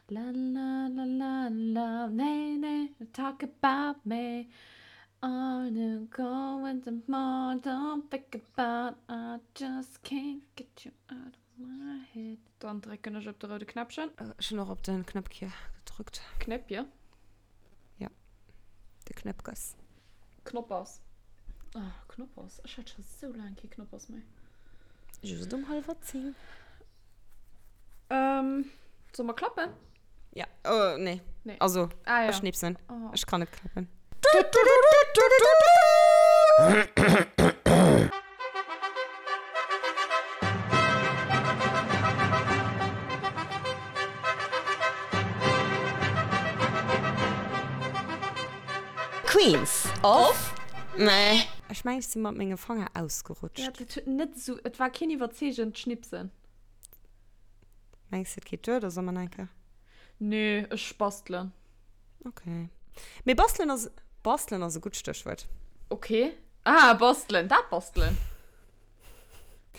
La la la la la nee nee talk about me Are you going tomorrow don't think about I just can't get you out of my head Dann drécken ech op de roude Knäppchen. Ech hunn och op den Knäppche gedrückt. Knäppje? Ja, de Knäppges. Knoppers. Oh, Knoppers. Ech hat scho sou laang kee Knoppers méi. Just um hallwer 10. Ähm, soll mer klappen? Ja, oh, nee. Nee. Also, ah, ja. ech schnipsen. Oh. Ech kann net klappen. Queens of Meh. Ech mengen ech si mat menge Fanger ausgerutscht. Ja, dat huet net esou, et war keen iwwerzeegend Schnipsen. Mengs de et geet duer oder soll mer nach eng Kéier? Nee, ech bastelen. Okay. Mee bastelen ass, bastelen ass e gutt Stéchwuert. Okay. Ah, bastelen, dat bastelen.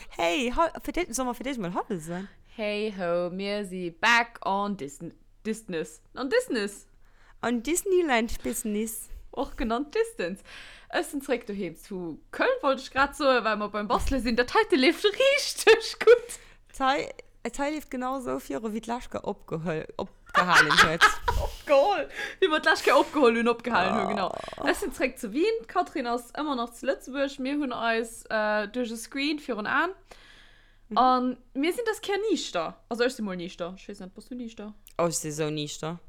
Hey, ha, fir d'éischt, soll mer fir d'éischt mol Hallo soen? Hey ho, mir si back on Disn, Disness, on Disness. On Disneyland Business. Och genannt Distance. Ech sinn zréck doheem zu Köln, wollt ech grad soen, well mer beim Bastele sinn. Dat heite leeft richteg gutt. D'Hei, d'Hei leeft genau esou viru wéi d'lescht Kéier opgeholl, opgehalen huet. Opgeholl! Wéi mer d'lescht Kéier opgeholl hunn, opgehalen hunn, genau. Ech sinn zréck zu Wien, d'Catherine ass ëmmer nach zu Lëtzebuerg. Mir hunn eis duerch e Screen virun Aen. An mir sinn dës Kéier niichter. Also ech si mol niichter. Ech weess net, bass du niichter? Oh, ech si sou niichter.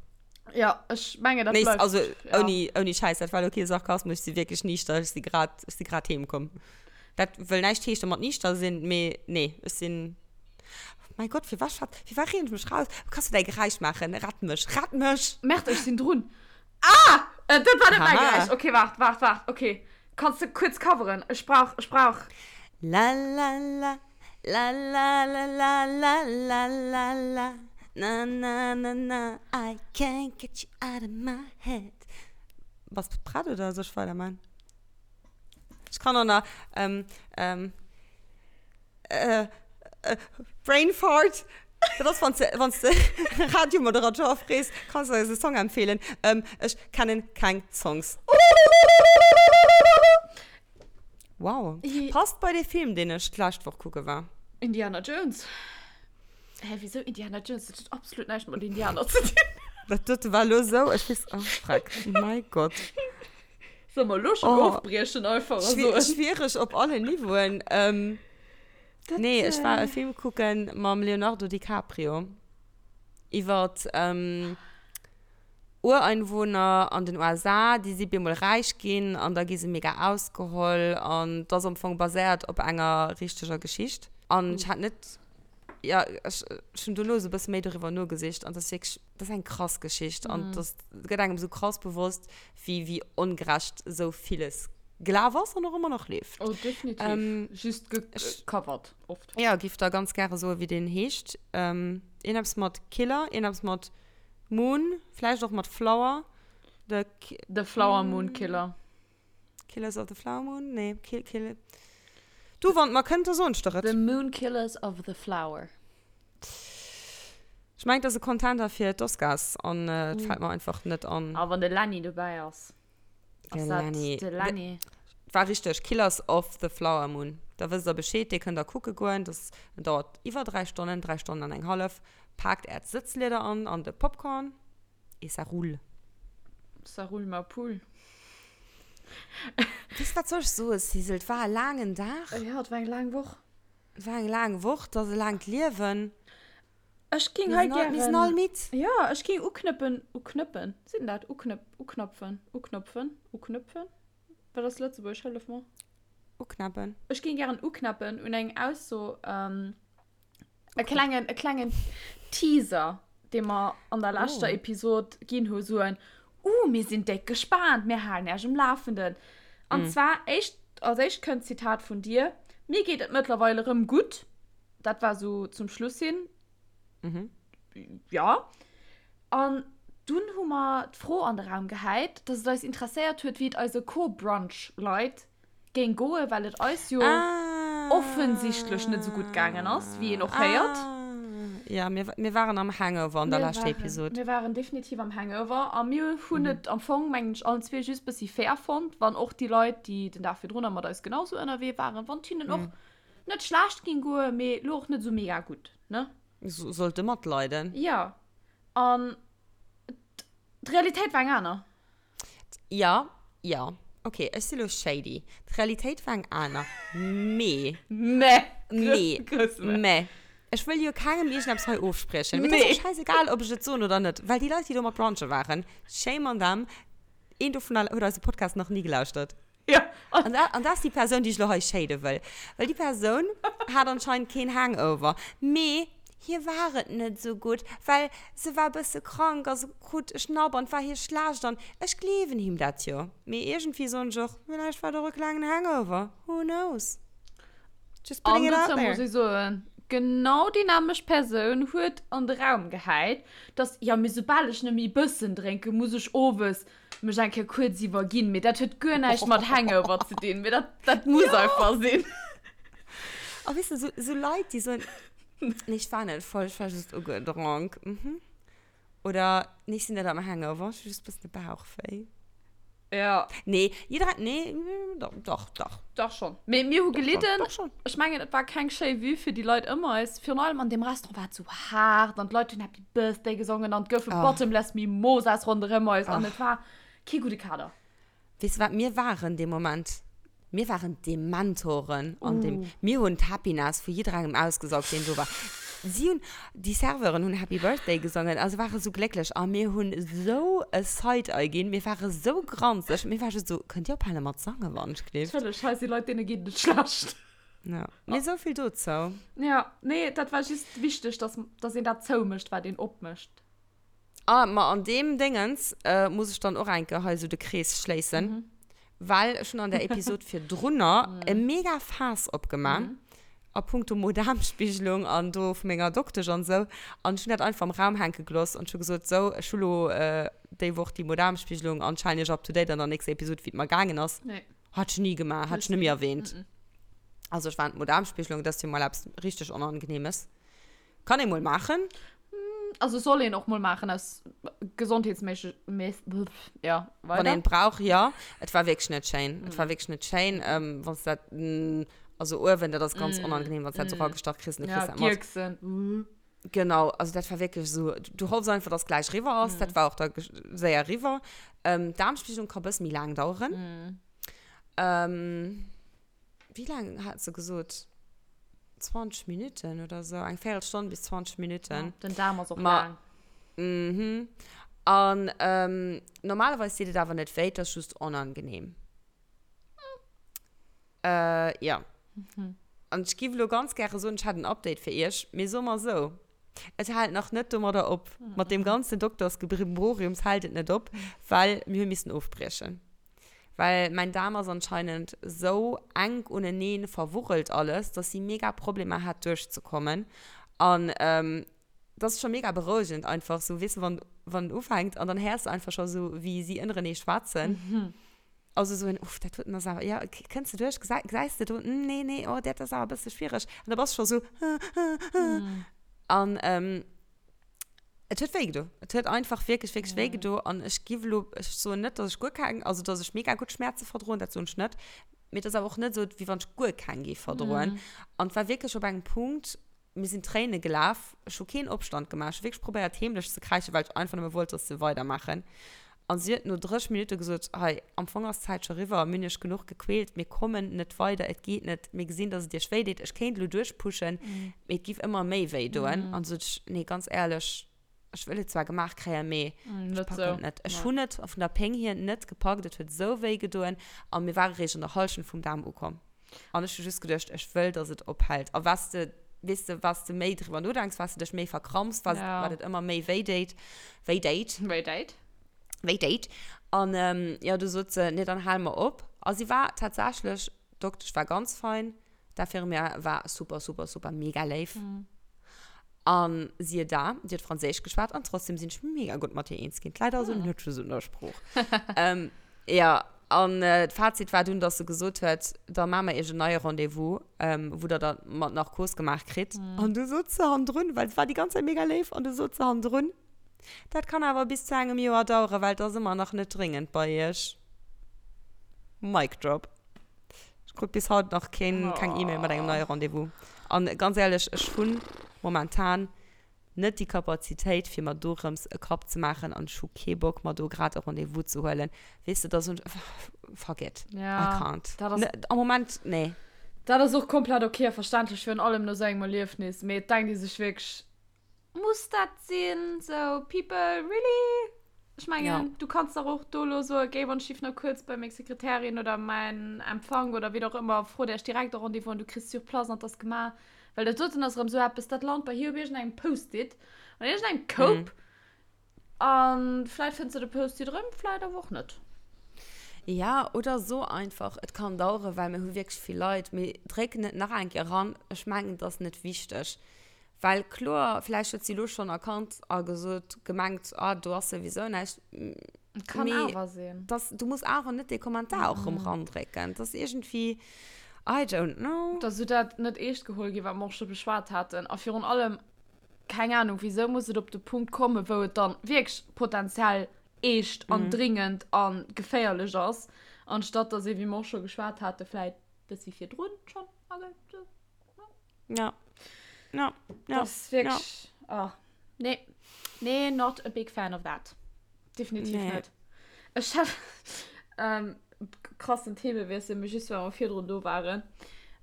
Ja, ech mengen, dat Nee, bleift. also ja. ouni, ouni Schäiss, dat war elo kee Sarkasmus, ech si wierklech niichter. Ech si grad, ech si grad heem komm. Dat wëll näischt heeschte mat niichter sinn, mee nee, ech sinn. Mäi Gott, firwat schwätz, firwat reen ech mech raus? Kanns du däi Geräisch maachen? Rett mech, rett mech! Merde, ech sinn drun. Ah! Äh, dat war net mäi Haha. Geräisch. Okay, waart, waart, waart. Okay. Kanns de kuerz coveren? Ech brauch, ech brauch. La la la, la la la la la la la la, na na na na, I can't get you out of my head. Bass de prett oder soll ech weiderman? Ech kann och nach, ähm, ähm. Brain fart. Dat ass, wann s de, wann s de Radiomoderateur frees, kanns de eis e Song empfeelen. Ech kennen keng Songs. Wow. Passt bei dee Film, deen ech d'lescht Woch kucke war. Indiana Jones. Hä, wisou Indiana Jones? Dat huet absolut näischt mat Indianer ze dinn. Dat dote war elo esou, ech weess, oh freck, mäi Gott. Soll mer elo schon oh, ofbriechen einfach a soen? Schwierig op allen Niveauen. Ähm, dat, nee, ech war e Film kucken mam Leonardo DiCaprio. Iwwer ähm, Ureinwohner an den USA, déi si bemol räich ginn an da gi se mega ausgeholl an dat ass am Fong baséiert op enger richteger Geschicht. An ech hat net, ja, ech, ech hunn dono esou e bësse méi doriwwer nogesicht an dat ass wierklech Dat ass eng krass Geschicht an das gëtt engem sou krass bewosst, wéi, wéi ongerecht sou villes gelaf ass an och ëmmer nach leeft. Oh, definitiv. Ähm, Just gecovert, oft. Ja, giff der ganz gäre soen, wéi deen heescht. Ähm, iergendeppes mat Killer, iergendeppes mat Moon, vläicht och mat Flower. The, The Flower Moon Killer. Killers of the Flower Moon? Nee, Kill, Kill. Du, wann et mer kënnt, da soen ech der et. The Moon Killers of the Flower. Ech mengen, et ass e Contender fir d'Oscars an et fält mer einfach net an. A wann de Lenny dobäi ass, ass dat de Lenny. War richteg, Killers of the Flower Moon. Da wësst der Bescheed, dee kënnt der kucke goen. Dat dauert iwwer 3 Stonnen, 3 Stonnen an eng hallef. Paakt äert Sëtzlieder an an de Popcorn et ça roule. Ça roule ma poule. Weess, wat soll ech soen, Sissel, et war e laangen Dag. Jo, et war eng laang Woch. Et war eng laang Woch, et ass e laangt Liewen. Ech ging hei gären. Mir sinn all midd. Jo, ech ging uknëppen, uknëppen, seet een dat? Uknëpp, uknapfen, uknopfen, uknëpfen? Wat ass Lëtzebuergesch? Hëllef mer. Uknappen. Ech ging gären uknappen un eng Ausso, e klengen, e klengen Teaser, dee mer an der leschter Episod ginn hu, sou en, Uh, mir sinn déck gespaant, mir halen Äech um Lafenden. An zwar éischt, als éischt kënnt d'Zitat vun dir, Mir geet et mëttlerweil erëm gutt. Dat war sou zum Schluss hin. Mhm. Ja. An dunn hu mer d'Fro an de Raum gehäit, dass et eis interesséiert huet, wéi et eise Co-Brunch-Leit géing goen, well et eis jo ah. offensichtlech net sou gutt gaangen ass, wéi een och héiert. Ah. Ja, mir, mir waren am Hangover an der leschter Episode. Mir waren definitiv am Hangover a mir hunn mhm. et am Fong, mengen ech, allen zwee just bëssi fair fonnt, wann och déi Leit, déi den Dag virdrun mat eis genauso ënnerwee waren, wann hinnen och mhm. net schlecht ging goen, mee lo och net sou mega gutt, ne? So, sollte matleiden. Ja. An d'Realitéit war eng aner. Ja, ja. Okay, ech si lo shady. D'Realitéit war eng aner. Mee. Mee. Mee. Mee. Ech wëll jo kengem iergendeppes hei ofspriechen. Mee dat ass och scheißegal, ob ech et soen oder net. Well déi Leit, déi do mat brunche waren, shame on them, een dovunner huet eise Podcast nach ni gelauschtert. Ja. An dat, an dat ass déi Persoun, déi ech lo hei shade wëll. Well déi Persoun hat anscheinend keen Hangover. Mee hir war et net esou gutt, well se war e bësse krank a se krut e Schnapp an et war hir schlecht. An ech gleewen him dat jo. Mee iergendwéi soen ech och, villäicht war et och e klengen Hangover. Who knows? Just putting it out there. An dozou muss ech soen, genau déi nämmlecht Persoun huet an de Raum gehäit, dass, jo, mee soubal ech nëmme e bëssen drénken, muss ech owes mech eng Kéier kuerz iwwerginn, mee dat huet guer näischt mat Hangover ze dinn, mee dat, dat muss einfach sinn. A weess de, sou, sou Leit, déi soen, nee, ech war net voll, ech war just ugedronk, mhm. Oder, nee, ech sinn net am Hangover, ech hu just e bëssen de Bauch wéi. Ja. Nee, jiddereen, nee, doch, doch, doch. Dach schon. Mee mir hu Doch schon, gelidden. doch schon. Ech mengen, et war keng schéi Vue fir déi Leit ëm eis. Virun allem an deem Restaurant war et sou haart an d'Leit hunn Happy Birthday gesongen an et goufe Oh. Bottomless Mimosas ronderëm eis an Oh. et war kee gudde Kader. Weess de wat mir waren dee Moment? Mir waren d'Dementoren an dem, Uh. mir hunn d'Happiness vu jidderengem ausgesaugt, deen do war. Si hunn, déi Serveuren hunn Happy Birthday gesongen a se ware sou glécklech a mir hunn sou e Side-Eye ginn, mir ware sou granzeg, mir ware just sou, Kënnt Dir ophale mat sangen, wann ech gleeft? Natierlech, hei si Leit, deene geet et net schlecht. Ja, mee sou vill dozou. Ja, nee, dat war just wichteg, dass, dass een dat zoumécht, wat een opmécht. Ah, ma an deem Déngens muss ech dann och eng Kéier hei esou de Krees schléissen, well ech hunn an der Episod virdrunner e mega Faass opgemaach a punkto Mo-Daarm-Spigelung an do vu menger Doktesch an esou. An ech hunn dat einfach am Raum hänke gelooss an ech hu gesot, sou, ech hu lo déi Woch déi Mo-Daarm-Spigelung an ech halen iech up to date an der nächster Episod, wéi et mer gaangen ass. Hat ech ni gemaach, hat ech net méi erwähnt. Also ech war an d'Mo-Daarm-Spigelung, dat ass jo mol eppes richteg Onangenehmes. Kann ee mol maachen. Also soll een och mol maachen aus gesondheetsméisseg, ja, weider. Wann een et brauch, jo. Et war wierklech net schéin. Et war wierklech net schéin, wann s dat, also uewen, dat ass ganz onangenehm, wann s dat esou ragestach kriss an du kriss dat mat. Ja, d'Gierksen. Genau, also dat war wierklech esou, du hoffs einfach, dass gläich riwwer ass. Dat war och da séier riwwer. D'Aarmspiegelung ka bësse méi laang daueren. Wéi laang hat se gesot? 20 Minuten oder sou, eng Véierelstonn bis 20 Minuten. Ja, den Daarm ass och laang. Mhm. An ähm, normalerweis deet et awer net wéi, et ass just onangenehm. Äh, ja. Mhm. An ech giff elo ganz gäre soen, ech hätt en Update fir iech, mee soe mer sou, et hält nach net domadder op. Mat deem ganzen Doktersgebrimboriums hält et net op, well mir hu missen ofbriechen. Well mäin Daarm ass anscheinend sou enk uneneen verwurrelt alles, dass si mega Problemer hat duerchzekommen. An dat ass scho mega berouegend einfach sou, weess de, wann wann en ufänkt an dann héiers de einfach scho sou wéi si ënnerenee schwätzen. Also sou en, uff, dat huet en ass awer, jo, kënns de duerch, gesäis gesäis de do, nee, nee, oh, dat ass awer e bësse schwiereg. An da bass de scho sou, An Et huet wéi gedo. Et huet einfach wierklech, wierklech wéi gedo. An ech giff elo, ech soen net, dass ech guer keng, also dass ech mega gutt Schmäerze verdroen, dat soen ech net. Mee et ass awer och net esou, wéi wann ech guer keng géif verdroen. An et war wierklech op engem Punkt, mir sinn Tréine gelaf, ech hu keen Opstand gemaach, ech hu wierklech probéiert heemlech ze kräischen, well ech einfach nëmme wollt, dass se weidermaachen. An si huet no 30 Minutte gesot, Hei, am Fong ass d'Zäit scho riwwer, mir hunn iech genuch gequält, mir kommen net weider, et geet net, mir gesinn, dass et iech wéi deet, ech kéint elo duerchpushen, mee et giff ëmmer méi wéi doen. An du sot ech, Nee, ganz éierlech, ech wëll et zwar gemaach kréien, mee ech packen et net. Ech hunn et vun der Péng hier net gepackt, et huet esou wéi gedoen a mir ware réischt an der Hallschent vum Daarm ukomm. An ech hu just geduecht, ech wëll, dass et ophält. A wat s de, weess de, wat s de méi driwwer nodenks, wat s de dech méi verkrampst, wat, Ja. wat et ëmmer méi wéi déit, wéi déit. Wéi déit. Wéi déit. An jo, du sot se, nee, dann hale mer op. A si war tatsächlech, d'Doktesch war ganz fein, d'Infirmière war super, super, super mega léif. An siehe da, déi huet Franséisch geschwat an trotzdem sinn ech mega gutt mat hir eens ginn. D'Leit also net just un der Sprooch. Jo. An d'Fazit war dunn, dass se gesot huet, da maache mer iech en neie Rendez-vous, wou der da mat Narkos gemaach kritt. An du sot se hannendrun, well se war déi ganz Zäit mega léif, an du sot se hannendrun, Dat kann awer bis zu engem Joer daueren, well et ass ëmmer nach net dréngend bei iech. Mic drop. Ech krut bis haut nach keen, keng E-Mail mat engem neie Rendez-vous. An ganz éierlech, ech hunn momentan net déi Kapazitéit fir mer dorëms e Kapp ze maachen an ech hu kee Bock mer do grad e Rendez-vous ze huelen. Weess de, da soen ech, fuck it, I can't. Dat ass, Am Moment, nee. Dat ass och komplett ok a verständlech, virun allem no sou engem Erliefnis. Mee et denkt ee sech wierklech, Muss dat sinn? Sou, people, really? Ech mengen, Ja. du kanns dach och do elo soen, géi wann ech giff nach kuerz bei meng Sekretärin oder mäin Empfang oder wien och ëmmer, frot Iech direkt e Rendez-vous an du kriss sur place an 't ass gemaach. Well dat doten ass erëm sou eppes, dat lant bei hir op iergendengem Post-it an iergendengem Koup an vläit fënns de de Post-it erëm, vläit awer och net. Ja, oder so einfach, et kann daueren, well mir hu wierklech vill Leit, mee dréck net nach eng Kéier eran, ech mengen, et ass net wichteg. Well kloer, vläicht huet si elo schonn erkannt a gesot, gemengt, ah, do ass souwisou näischt. Kann Mee awer sinn. dass, du muss awer net dee Kommentar och erëm randrécken. Dat ass iergendwéi, I don't know. Dass esou dat net eescht geholl ginn, wat mer och scho beschwat haten. A virun allem, keng Ahnung, wisou muss et op de Punkt kommen, wou et dann wierklech potenziell eescht an dringend a geféierlech ass, anstatt dass ee, wéi mer och scho geschwat haten, vläit bëssi virdrun schonn agehäit. Ja. Ja. Ja. Das ist wirklich. Ja. Oh. Nee. Nee, not a big fan of that. Definitiv nee. net. Ech hat ähm, krassen Themewiessel, mee just well mer virdrun do waren.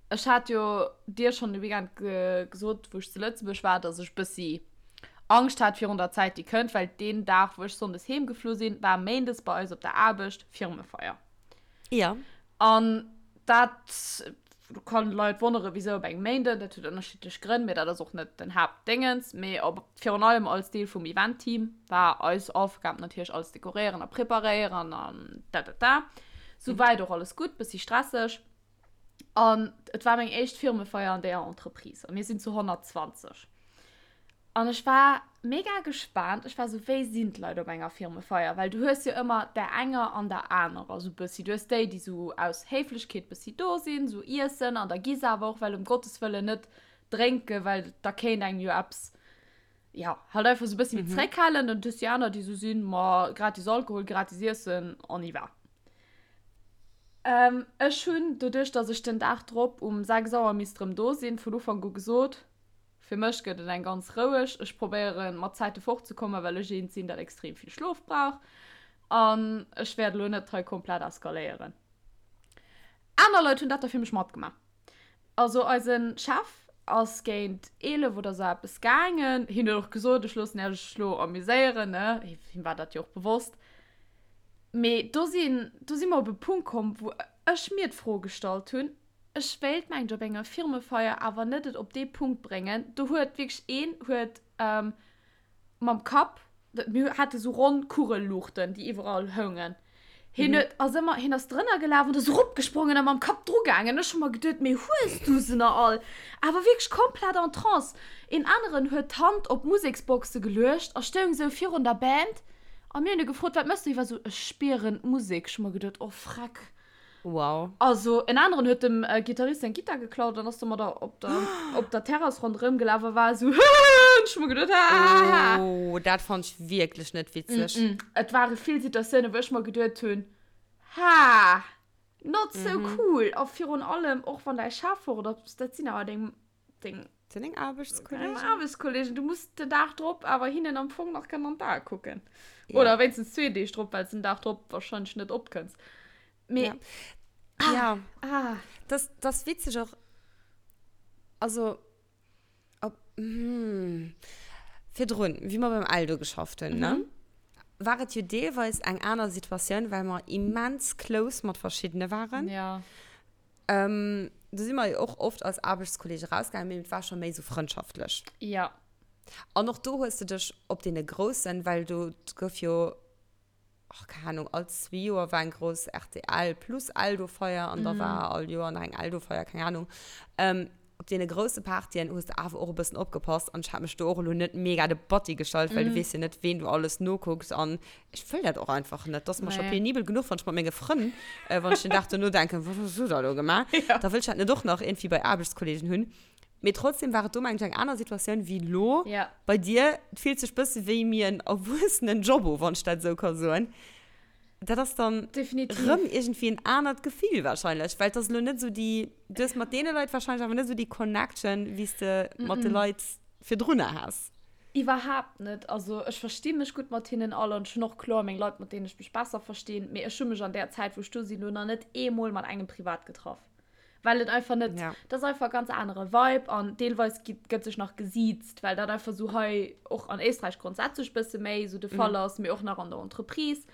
Ech hat jo dir schonn de Weekend ge gesot, wou ech zu Lëtzebuerg war, dass ech bëssi Angscht hat virun der Zäit, déi kënnt, well deen Dag, wou ech sonndes heemgeflu sinn, war méindes bei eis op der Aarbecht Firmefeier. Ja. An dat kann d'Leit wonneren, wisou op engem Méinden. Dat huet ënnerschiddlech Grënn, mee dat ass och net den Haaptdéngens. Mee op, virun allem als Deel vum Event-Team war eis Aufgab natierlech alles dekoréieren a preparéieren an da da da. Souwäit och alles gutt, bëssi stresseg. An et war meng éischt Firmefeier an deeër Entreprise a mir sinn zu 120. An ech war mega gespaant. Ech war sou, wéi sinn d'Leit op enger Firmefeier? Well du hues jo ëmmer där enger an der anerer sou bëssi. Du hues déi, déi sou aus Héiflechkeet bëssi do sinn, sou iessen an da gi se awer och, well ëm Gottes Wëllen net drénken, well da kéint engem jo eppes, ja, halt einfach sou bëssi méi zréckhalen. An du hues déi aner, déi sou sinn, ma gratis Alkohol, gratis Iessen, on y va. Ech hunn, doduerch datt ech den Dag drop um 6 Auer misst erëm do sinn, vun Ufank u gesot, Fir mech gëtt et eng ganz roueg. Ech probéieren mat Zäite fortzekommen, well ech eent sinn, dat extrem vill Schlof brauch. An ech wäert elo net hei komplett eskaléieren. Aner Leit hunn dat da fir mech matgemaach. Also eise Chef ass géint 11 oder sou eppes gaangen. Hien huet och gesot, ech loossen Iech elo amuséieren, ne? Him war dat jo och bewosst. Mee do sinn, do si mer op e Punkt komm, wou ech mir d'Fro gestallt hunn, Ech wéilt mengt op enger Firmefeier awer net et op dee Punkt bréngen. Do huet wierklech een huet mam Kapp, mir hate sou ronn Kugelluuchten déi iwwerall houngen, hien huet ass ëmmer, hien ass drënner gelaf an ass eropgesprongen a mam Kapp dru gaangen. Ech hu mer geduet, mee hues du se nach all? Awer wierklech komplett en Trance. Een aneren huet d'Hand op d'Museksboxe geluecht a stoung sou virun der Band a mir hunn e gefrot, wat mëss du? Hie war sou, ech spieren d'Musek. Ech hu mer geduet, oh freck. Wow. Also en aneren huet dem Gitarrist seng Gittar geklaut an ass domadder op der, op der Terrass ronderëm gelaf a war esou, Hëhëhë! Ech hu mer geduet, Hahaha! Oh, dat fannt ech wierklech net witzeg. Mm-mm. Et ware vill Situatiounen, wou ech mer geduet hunn, Ha, not so cool! A virun allem och wann däi Chef fort ass, dat sinn awer deng, deng. Sinn deng Aarbechtskollegen. Deng Aarbechtskollegen. Du muss den Dag drop awer hinnen am Fong nach kënnen an d'Ae kucken. Ja. Oder wéinstens zwee Deeg drop, well s den Dag drop wahrscheinlech net opkënns. Mee. Ja. Ah, ja. Ah. Das, das witzeg och. Also, ob, hm, virdrun, wéi mer beim Eldo geschafft hunn, ne? Mhm. War et jo deelweis eng aner Situatioun, well mer immens close mat verschiddene waren. Ja. Ähm, do si mer jo och oft als Aarbechtskollege rausgaangen, mee et war scho méi sou frëndschaftlech. Ja. An och do hues de dech op deene Groussen, well do gouf jo, ach, keng Ahnung, all zwee Joer war eng grouss rtl plus Eldo-Feier an da war all Joer nach eng Eldo-Feier, keng Ahnung. Op deene grousse Partyen hues de awer och e bëssen opgepasst an ech hat mech do och elo net mega de Batti gestallt, well du weess jo net, ween du alles nokucks an ech wëll dat och einfach net. Dat ass mer scho penibel genuch, wann ech mat menge Frënn, wann ech den Dag dono denken, wat hues du da elo gemaach? Da wëll ech dat net och nach iergendwéi bei Aarbechtskollegen hunn. Mee trotzdem war et do, mengen ech, eng aner Situatioun wéi elo bei dir. Et fillt sech bësse wéi mir en Erwuessenen-Job u, wann ech dat esou ka soen. Dat ass dann Definitiv. rëm iergendwéi en anert Gefill wahrscheinlech, well et ass elo net esou déi, du hues mat deene Leit wahrscheinlech awer net esou déi Connection, wéi s de mat de Leit virdrunner has. Iwwerhaapt net. Also ech versti mech gutt mat hinnen all an ech hunn och kloer meng Leit, mat deenen ech mech besser verstinn, mee ech hu mech an där Zäit, wou ech do sinn, elo nach net eemol mat engem privat getraff. Well et einfach net, Ja. dat ass einfach e ganz anere Vibe an deelweis gi gëtt sech nach gesiezt, well dat einfach sou hei och an Éisträich grondsätzlech bësse méi sou de Fall ass, mee och nach an der Entreprise.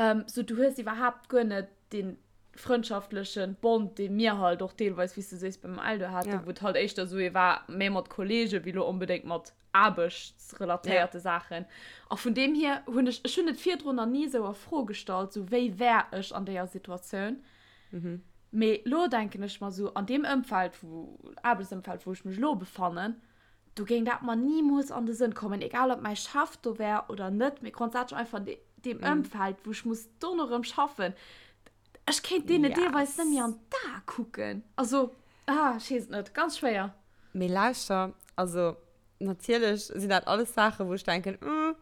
Ähm, sou du hues iwwerhaapt guer net dee frëndschaftleche Bond, dee mir halt och deelweis, wéi s du sees, beim Eldo haten, Ja. wou et halt éischter sou ee war, méi mat Kollege wéi lo onbedéngt mat aarbechtsrelatéierte Saachen. A vun deem hier hunn ech, ech hunn et virdrun nach ni sou a Fro gestallt, sou wéi wär ech an deeër Situatioun. Mee lo denken ech mer sou, an deem Ëmfeld, wou, Aarbechtsëmfeld, wou ech mech lo befannen, do géing dat mer nimools an de Sënn kommen, egal ob mäi Chef do wär oder net, mee grondsätzlech einfach an deem Ëmfeld, wou ech muss dono rëm schaffen, ech kéint deene deelweis net méi an d'Ae kucken. Also, ah, ech weess et net, ganz schwéier. Mee lauschter, also natierlech sinn dat alles Saachen, wou ech denken, Hm,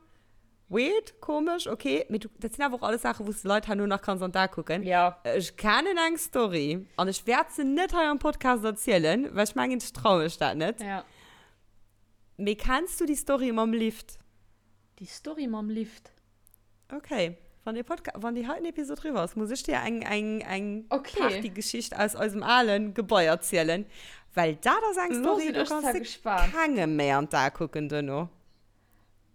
Weird, komesch, ok, mee du, dat sinn awer och alles Saachen, wou s de Leit herno nach kanns an d'A kucken. Ja. Ech kennen eng Story an ech wäert se net hei am Podcast erzielen, well ech mengen, ech traue mech dat net. Ja. Mee kenns du déi Story mam Lift? Déi Story mam Lift? Ok, wann dee Podca-, wann déi heiten Episod riwwer ass, muss ech dir eng, eng, eng Okay. Partygeschicht aus eisem alen Gebai erzielen, well dat ass eng Lo Story, sinn do ech kanns zwar de gespaant. kengem méi an d'A kucken duerno.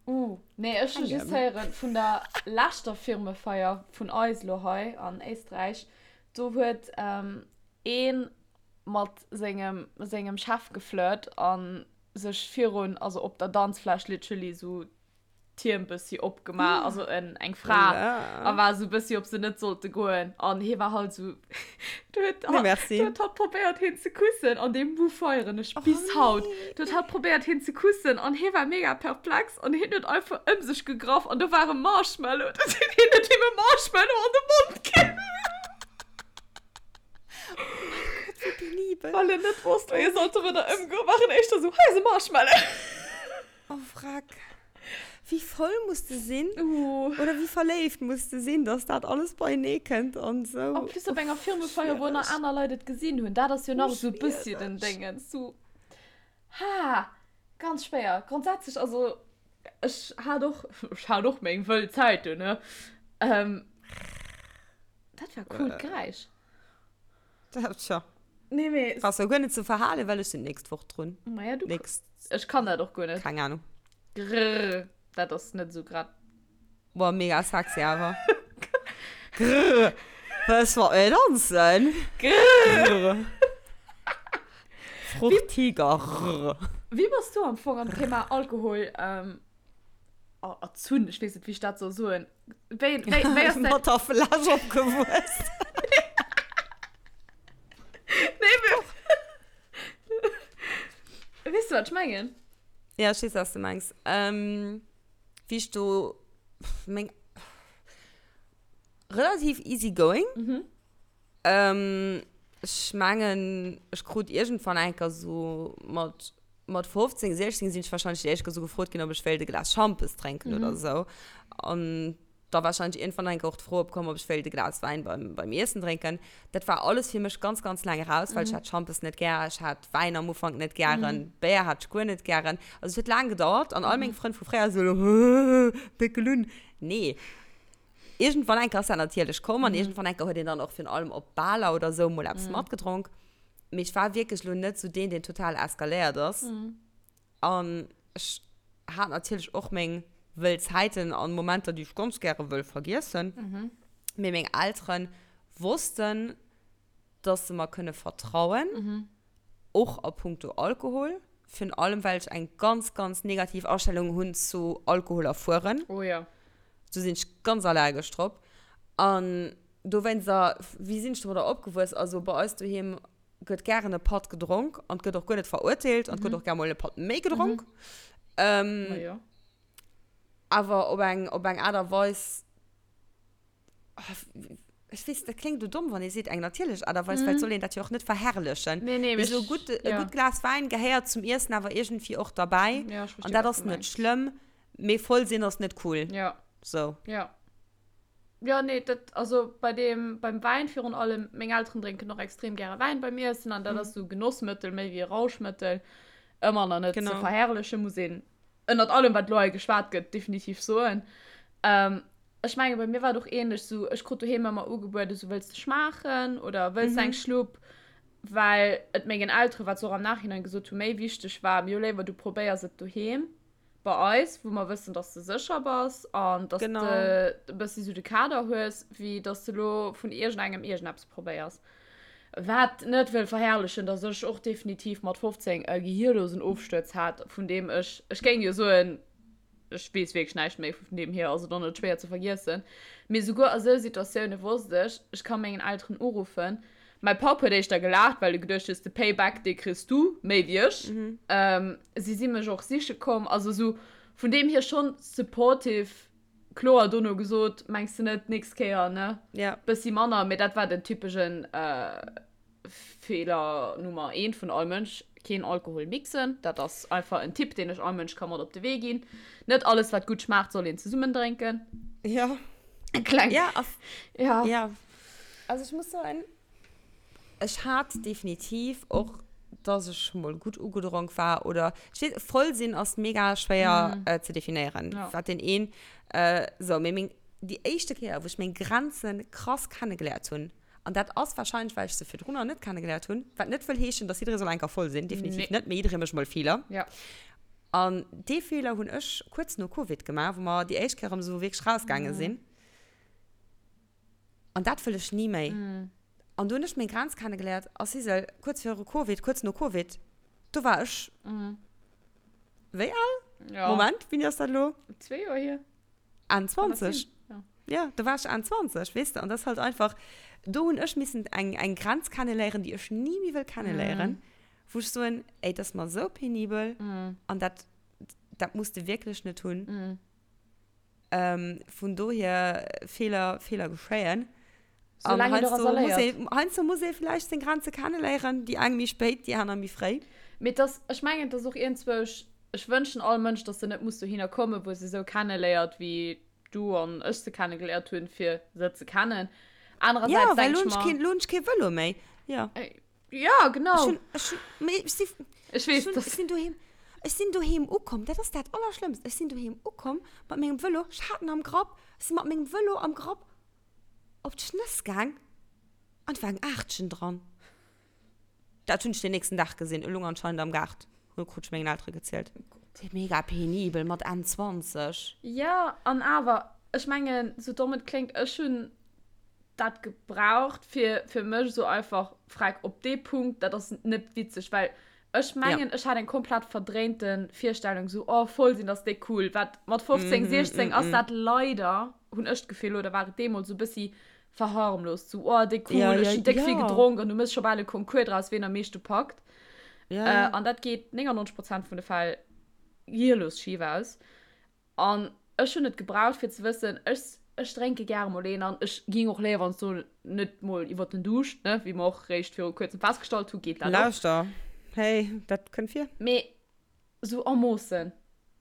Uh, nee, ech hu just héieren vun der leschter Firmefeier vun eis lo hei an Éisträich, do huet ee mat sengem sengem Chef geflirt an sech virun, also op der Danzfläch literally sou d'Hiem bëssi opgemaach, also en eng Fra, a war sou bëssi ob se net sollte goen an hie war halt sou, do huet Nee, merci. do huet hatt probéiert hien ze kussen an dee Move feieren ech bis haut. Do huet hatt probéiert hien ze kussen an hie war mega perplex an hien huet einfach ëm sech gegraff an do war e Marshmallow, dat huet hien huet him e Marshmallow an de Mond ginn. Oh mein Gott, wéi penibel. Well en net wosst wéi e sollt domadder ëmgoen, war en éischter sou, hei ass e Marshmallow. Oh Wrack. Wéi voll muss de sinn? Uh. Oder wéi verléift muss de sinn, dass dat alles beienee kënnt an sou. En plus op enger Firmefeier, wou nach aner Leit et gesinn hunn. Dat ass jo nach esou e bëssi den Déngens. Sou, ha, ganz schwéier. Grondsätzlech, also ech hat och, ech hat och meng wëll Zäiten, ne? Ähm, dat war coolt Geräisch. Tja. Nee, mee. Brauchst du guer net ze verhalen, well ech sinn d'nächst Woch drun. Maja, du. Nächst. Ech kann dat och guer net. Keng Ahnung. Grrr. Dat ass net esou grad. Boah, mega sexy awer. Grrr. Wëlls mat mir danzen? Grrr. Fruchtiger. Grrr. Wéi bass du am Fong am Thema Alkohol ähm, erzunn? Ech weess net, wéi ech dat soll soen. Wéi, wéi, wéi ass Mat der Fläsch opgewuess. Nee, mee. Weess du, wat ech mengen? Ja, ech weess, wat s du mengs. Ähm, wéi ech do, meng, relativ easy going. Mhm. Ähm, ech mengen, ech krut iergendwann eng Kéier sou mat, mat 15, 16 sinn ech wahrscheinlech déi éischt Kéier sou gefrot ginn, ob ech wéilt e Glas Schampes drénken oder sou. An da wahrscheinlech iergendwann eng Kéier och d'Fro opkomm, ob ech wéilt e Glas Wäin beim, beim Iessen drénken. Dat war alles fir mech ganz, ganz laang eraus, well ech hat Schampes net gär, ech hat Wäin am Ufank net gären, Béier hat ech guer net gären. Also et huet laang gedauert an all meng Frënn vu fréier sou elo, Péckel un. Nee. Iergendwann eng Kéier ass dat natierlech komm an iergendwann eng Kéier huet een dann och virun allem op Baler oder sou mol eppes matgedronk. Mee ech war wierklech elo net sou deen, deen total eskaléiert ass. An ech hat natierlech och meng wëll Zäiten an Momenter, déi ech ganz gäre wëll vergiessen. Mee meng Eltere wossten, dass se mer kënne vertrauen. Och a puncto Alkohol, virun allem well ech eng ganz, ganz negativ Astellung hunn zu Alkohol a Fueren. Oh jo. Do sinn ech ganz allergesch drop. An dowéinster, wéi sinn ech domadder opgewuess? Also bei eis doheem. gëtt gären e Patt gedronk an gëtt och guer net verurteelt an gëtt och gär mol e Patt méi gedronk. Ähm, Ma jo. awer op eng, op eng Aart a Weis, ah, ech weess, dat kléngt elo domm, wann ee seet eng natierlech Aart a Weis, well et soll een dat jo och net verherrlechen. Nee, nee, Mee sou e gutt, e ja. gutt Glas Wäin gehéiert zum Iessen awer iergendwéi och derbäi. Ja, ech An versti, dat wat ass du net mengs. schlëmm, mee voll sinn ass net cool. Ja. Sou. Ja. Ja, nee, dat, also bei dem, beim Wäin virun allem, meng Elteren drénken och extrem gäre Wäin beim Iessen an dat ass sou Genossmëttel méi wéi e Rauschmëttel. Ëmmer nach net ze Genau. verherrlechen, muss een ënnert allem, wat elo hei geschwat gëtt, definitiv soen. Ähm, ech menge bei mir war et och ähnlech, sou ech krut doheem ëmmer ugebueden, sou wëlls de schmaachen oder wëlls de eng Schlupp, well et mengen Elteren, wat se och am Nachhinein gesot hu, méi wichteg war, mir hu léiwer du probéiers et doheem bei eis, wou mer wëssen, dass de sécher bass an dass Genau. de e bëssi sou de Kader hues, wéi dass de lo vun iergendengem iergendeppes probéiers. Wat net wëll verherrlechen, dass ech och definitiv mat 15 e gehirlosen Ofstuerz hat, vun deem ech, ech géing jo soen, ech weess wierklech näischt méi, vun deem hier ass et och net schwéier ze vergiessen, mee souguer a sou Situatioune wosst ech, ech ka mengen Elteren uruffen. Mäi Papp huet éischter gelaacht, well e geduecht huet, de Payback, dee kriss du méi wéi ech. Si si mech och siche komm, also sou vun deem hier schonn supportive. Kloer dono gesot, mengs de net, nächst Kéier, ne? Ja. Bëssi manner, mee dat war den typeschen Feeler Nummer eent vun all Mënsch, keen Alkohol mixen. Dat ass einfach en Tipp, deen ech all Mënsch ka mat op de Wee ginn. Net alles, wat gutt schmaacht, soll een zesummen drénken. Ja. Kleng. Ja, ass. Ja. Ja. Also ech muss soen, Ech hat definitiv och, dass ech mol gutt ugedronk war oder ech weess, voll sinn ass mega schwéier mm. äh, ze definéieren. Ja. Wat den een äh, so, mee meng, déi éischte Kéier, wou ech meng Grenze krass kennegeléiert hunn, an dat ass wahrscheinlech, well ech se virdrun nach net kennegeléiert hunn, wat net wëll heeschen, dass jidderee soll eng Kéier voll sinn, definitiv Nee. net, mee jidderee mécht mol Feeler. Ja. An dee Feeler hunn ech kuerz no Covid gemaach, wou mer déi éischt Kéier erëm esou wierklech rausgaange sinn. An dat wëll ech ni méi. An do hunn ech meng Grenz kennegeléiert. A Sisel, kuerz viru Covid, kuerz no Covid, do war ech wéi al? Ja. Moment, wéini ass dat elo? Zwee Joer hier. Enn 20. Ja. Ja, do war ech Enn 20, weess de. An dat ass halt einfach, do hunn ech missen eng, eng Grenz kenneléieren, déi ech ni méi wëll kenneléieren, wou ech soen, ey, dat ass mer esou penibel an dat, dat muss de wierklech net hunn. Ähm, vun dohier, Feeler, Feeler geschéien. An Soulaang een heiansdo doraus muss léiert. ee, heiansdo muss ee vläicht seng Grenze kenneléieren, déi eng méi spéit, déi aner méi fréi. Mee et ass, ech mengen, et ass och iergendzwousch, ech wënschen all Mënsch, dass se net muss dohinner kommen, wou e se esou kenneléiert, wéi du an ech se kennegeléiert hunn, fir se ze kennen. Ja, Anerersäits well denk elo ech hunn ech mer. keen, elo hunn ech kee Vëlo méi. Ja. Ja, genau. Ech hunn, ech hunn, mee ech si, Ech weess, ech hunn, dass. ech sinn doheem, ech sinn doheem ukomm, dat ass dat Allerschlëmmst, ech sinn doheem ukomm mat mengem Vëlo, ech hat en am Grapp, ech si mat mengem Vëlo am Grapp op d'Schnëss gaang an et war eng Aachtchen dran. Dat hunn ech den nächsten Dag gesinn, e lung anscheinend am Gaart, hu krut ech mengen Eltere gezielt. Mega penibel mat Enn 20. Ja, an awer, ech mengen, sou domm et kléngt, ech hunn dat gebraucht fir fir mech esou einfach freck op dee Punkt, dat ass net witzeg, well ech mengen ja. ech hat eng komplett verdréinte Virstellung sou oh voll sinn ass déck cool, wat mat 15, mm, 16 mm, ass mm. dat leider hunn ech d'Gefill oder war et deemools sou bëssi verharmlost sou oh déck cool, ja, ech hunn déck ja. vill gedronk an du mëss scho bal e Concours draus ween am meeschte packt. Ja. Äh, an dat geet 99 Prozent vun de Fäll gehirlos schif aus. An ech hunn et gebraucht fir ze wëssen, ech ech drénke gäre mol een an ech ging och léiwer wann s du net mol iwwert den Duuscht, ne, wéi mer och réischt viru kuerzem festgestallt hu geet dat och. Lauschter, hey, dat kënnt vir. Mee sou a Moossen.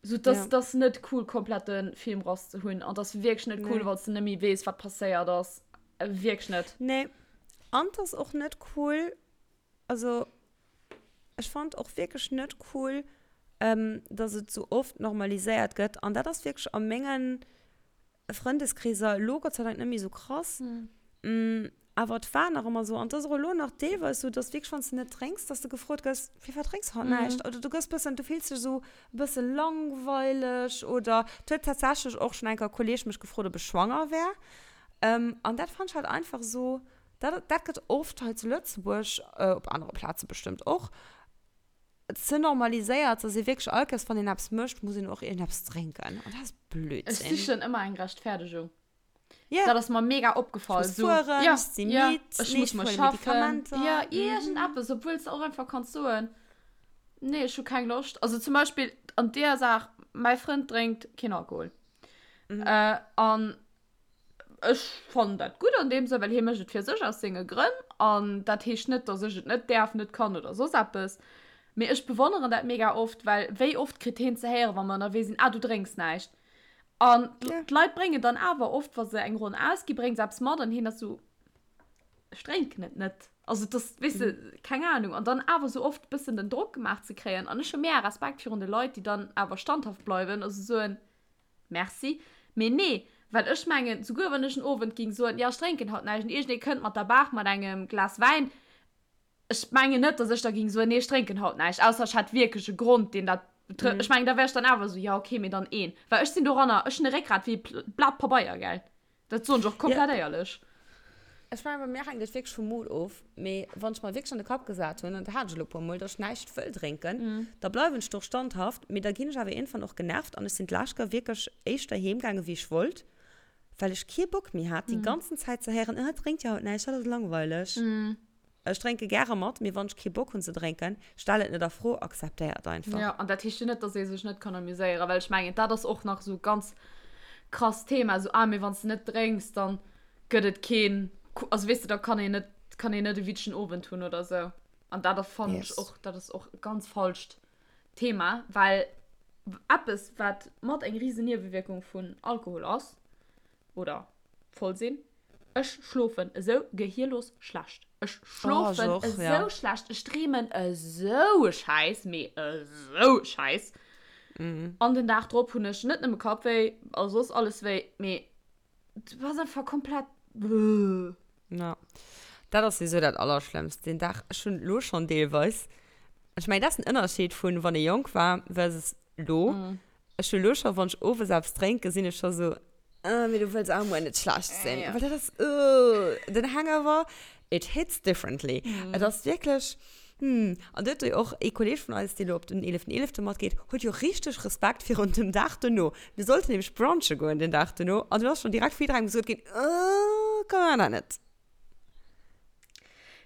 Sou dass Ja. dass net cool komplett de Film rass ze hunn an dass wierklech net cool Nee. wann s de net méi weess wat passéiert ass. Wierklech net. Nee, an 't ass och net cool, Also ech fand och wierklech net cool, ähm, dass et sou oft normaliséiert gëtt. An dat ass wierklech a mengen Frëndeskreeser elo Gott sei Dank net méi sou krass. Mm. Awer et war nach ëmmer sou, an et ass och elo nach deelweis sou, dass wierklech wann s de net drénks, dass de gefrot gëss, Firwat drénks haut näischt? Oder du gëss bëssen, du fills dech sou e bësse langweileg oder et huet tatsächlech och schonn eng Kéier e Kolleeg mech gefrot, ob ech schwanger wär. Ähm, an dat fand ech halt einfach sou, Dat, dat gëtt oft hei zu Lëtzebuerg, op anere Plaze bestëmmt och, ze normaliséiert, dass ee wierklech all Kéiers, wann een eppes mécht, muss een och iergendeppes drénken. An dat ass Ech Blödsinn. sichen ëmmer eng Rechtfertegung. Ja. Dat ass mer mega opgefall. Ech muss fueren, ja, ech si ja, midd, ech nee, muss ech mol huele schaffen. Medikamenter. Ja, iergendeppes, obwuel s de och einfach kanns soen, nee, ech hu keng Loscht. Also zum Beispill an deeër Saach, mäi Frënd drénkt keen Alkohol. Äh, an ech fannen dat gutt an deem Sënn, well hie mécht et fir sech aus senge Grënn. An dat heescht net, datt ech et net däerf, net kann oder soss eppes. Mee ech bewonneren dat mega oft, well wéi oft kritt heen ze héieren, wa mer ënnerwee sinn, Ah, du drénks näischt. An d'Leit bréngen dann awer oft, wa se eng Ronn ausgi, bréngen se eppes mat an hien ass esou, Ech drénken et net. Also et ass, weess de, keng Anung. An dann awer esou oft e bëssen den Drock gemaach ze kréien. An ech hu mega Respekt virun de Leit, déi dann awer standhaft bleiwen a soen, Merci. Mee nee, well ech mengen, souguer wann ech en Owend géing soen, jo, ech drénken haut näischt, an iergendee kënnt mat der Baach mat engem Glas Wäin, Ech mengen net, dass ech da ging soen, nee, ech drénken haut näischt, ausser ech hätt wierklech e Grond, deen dat betrëfft. Ech mengen, da wär ech dann awer esou, jo, okay, mee dann een. Well ech sinn doranner, ech hunn e Réckgrat wéi e Blat Pabeier, gell. Dat soen ech och komplett éierlech. Ech mengen, bei mir hänkt et wierklech vum Mood of. Mee wann ech mer wierklech an de Kapp gesat hunn, an dat hat ech elo e puer Mol, dass ech näischt wëll drénken, da bleiwen ech do och standhaft. Mee da ginn ech awer iergendwann och genervt an ech sinn d'lescht Kéier wierklech éischter heem gaangen, wéi ech wollt, well ech kee Bock méi hat, déi ganzen Zäit ze héieren, Ah, drénkt jo haut näischt, dat ass langweileg. Ech drénke gäre mat, mee wann ech kee Bock hunn ze drénken, stell et net a Fro, akzeptéier et einfach. Jo, an dat heescht jo net, dass ee sech net kann amuséieren, well ech mengen, dat ass och nach esou e ganz krasst Thema, esou, ah, mee wann s de net drénks, dann gëtt et keen, also weess de, da kann een net, kann een net e witzegen Owend hunn oder esou. An dat fannen ech och, dat ass och e ganz falscht Thema, well eppes, wat mat eng risen Niewewierkung vun Alkohol ass, oder voll sinn. Ech schlofen esou gehierlos schlecht. Ech schlofen oh, esou ja. schlecht. Ech dreemen esou e Schäiss, mee esou e Schäiss. Mm. An den Dag drop hunn ech net nëmme Kappwéi, a soss alles wéi, mee du bass einfach komplett. Ja. Dat ass sowieso dat Allerschlëmmst. Den Dag, ech hunn lo schonn deelweis. Ech mengen, dat ass den Ënnerscheed vun, wann ee jonk war versus lo. Mm. Ech hu lo scho, wann ech owes eppes drénken, sinn ech scho sou, ah, mee du wëlls awer muer net schlecht sinn. Ja. Well dat ass, uh, den Hangover, it hits differently. Mm. Et ass wierklech, hm. An do huet jo och ee Kolleeg vun eis, dee lo op den 11.11. matgeet, huet jo richteg Respekt virun dem Dag dono. Mir sollten nämlech brunche goen den Dag dono an du ass schonn direkt vu jidderengem gesot ginn, uh, komm, mir maachen dat net.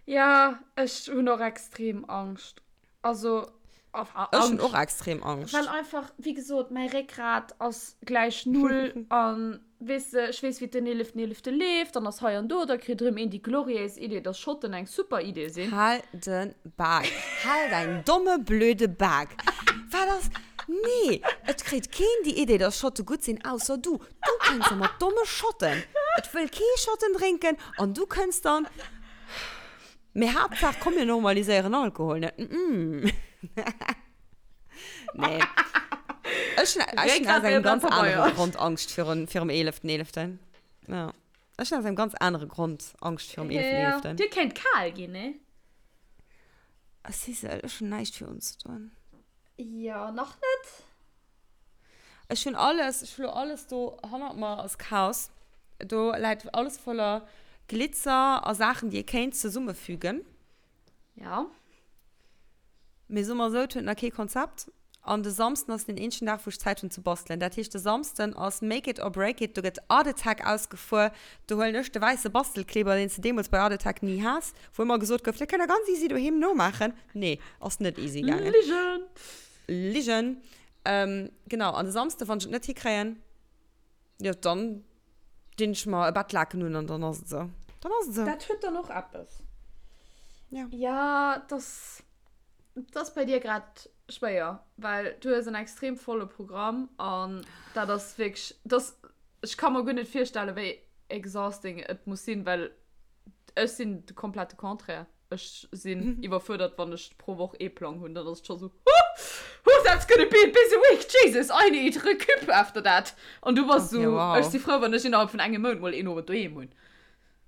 Ja, ech hunn och extrem Angscht. Also, Ech hunn och extrem Angscht. Well einfach, wéi gesot, mäi Réckgrat ass gläich null an, weess de, ech weess, wéi den eeleften eelefte leeft, dann ass hei an do, da kritt erëm een déi gloriéis Idee, dass Schotten eng super Idee sinn. Hal de Bak. Hal däin domme blöde Bak. Wat ass, nee, et kritt keen déi Idee, dass Schotte gutt sinn, ausser du. Du kënns da mat domme Schotten. Et wëll kee Schotten drénken an du kënns dann. Mee Haaptsaach, komm mir normaliséieren Alkohol net. Mm. Nee. Ech hunn ech hunn aus engem ganz anere Grond Angscht virun, virum 11.11. Ja. Ech hunn aus engem ganz anere Grond Angscht virum 11.11. Ja, dir kéint kal ginn, nee? Sissel, ech hunn näischt fir unzedoen. Jo, nach net. Ech hunn alles, ech hu lo alles do hannert mer ass Chaos. Do läit alles voller Glitzer a Saachen, déi ee kéint zesummefügen. Ja. Mee soe mer esou, et huet nach kee Konzept. An de Samsden ass den eenzegen Dag, wou ech Zäit hunn ze bastelen. Dat heescht, de Samsden ass make it or break it. Do gëtt Art Attack ausgefuer. Do huelen ech de wäisse Bastelkleber, deen s de deemools bei Art Attack ni has, wou ëmmer gesot gouf, dat kënnt der ganz easy doheem nomaachen. Nee, ass net easy gaangen. Ligen! Ligen. Ähm, genau, an de Samsde, wann ech et net hikréien, jo, dann dinn ech mer e Bettlaken un an dann ass et esou. Dann ass et esou. Dat huet dann och eppes. Ja. Ja, dass, dass bei dir grad schwéier, well du hues en extrem volle Programm an dat ass wierklech, dass, ech ka mer guer net virstellen, wéi exhausting et muss sinn, well ech sinn de komplette Contraire. Ech sinn iwwerfuerdert, wann ech pro Woch ee Plang hunn. Dann ass et scho sou, Huh, that's gonna be a busy week, Jesus, I need recup after that. An du bass sou, ech si frou, wann ech innerhalb vun engem Mount mol een Owend doheem hunn.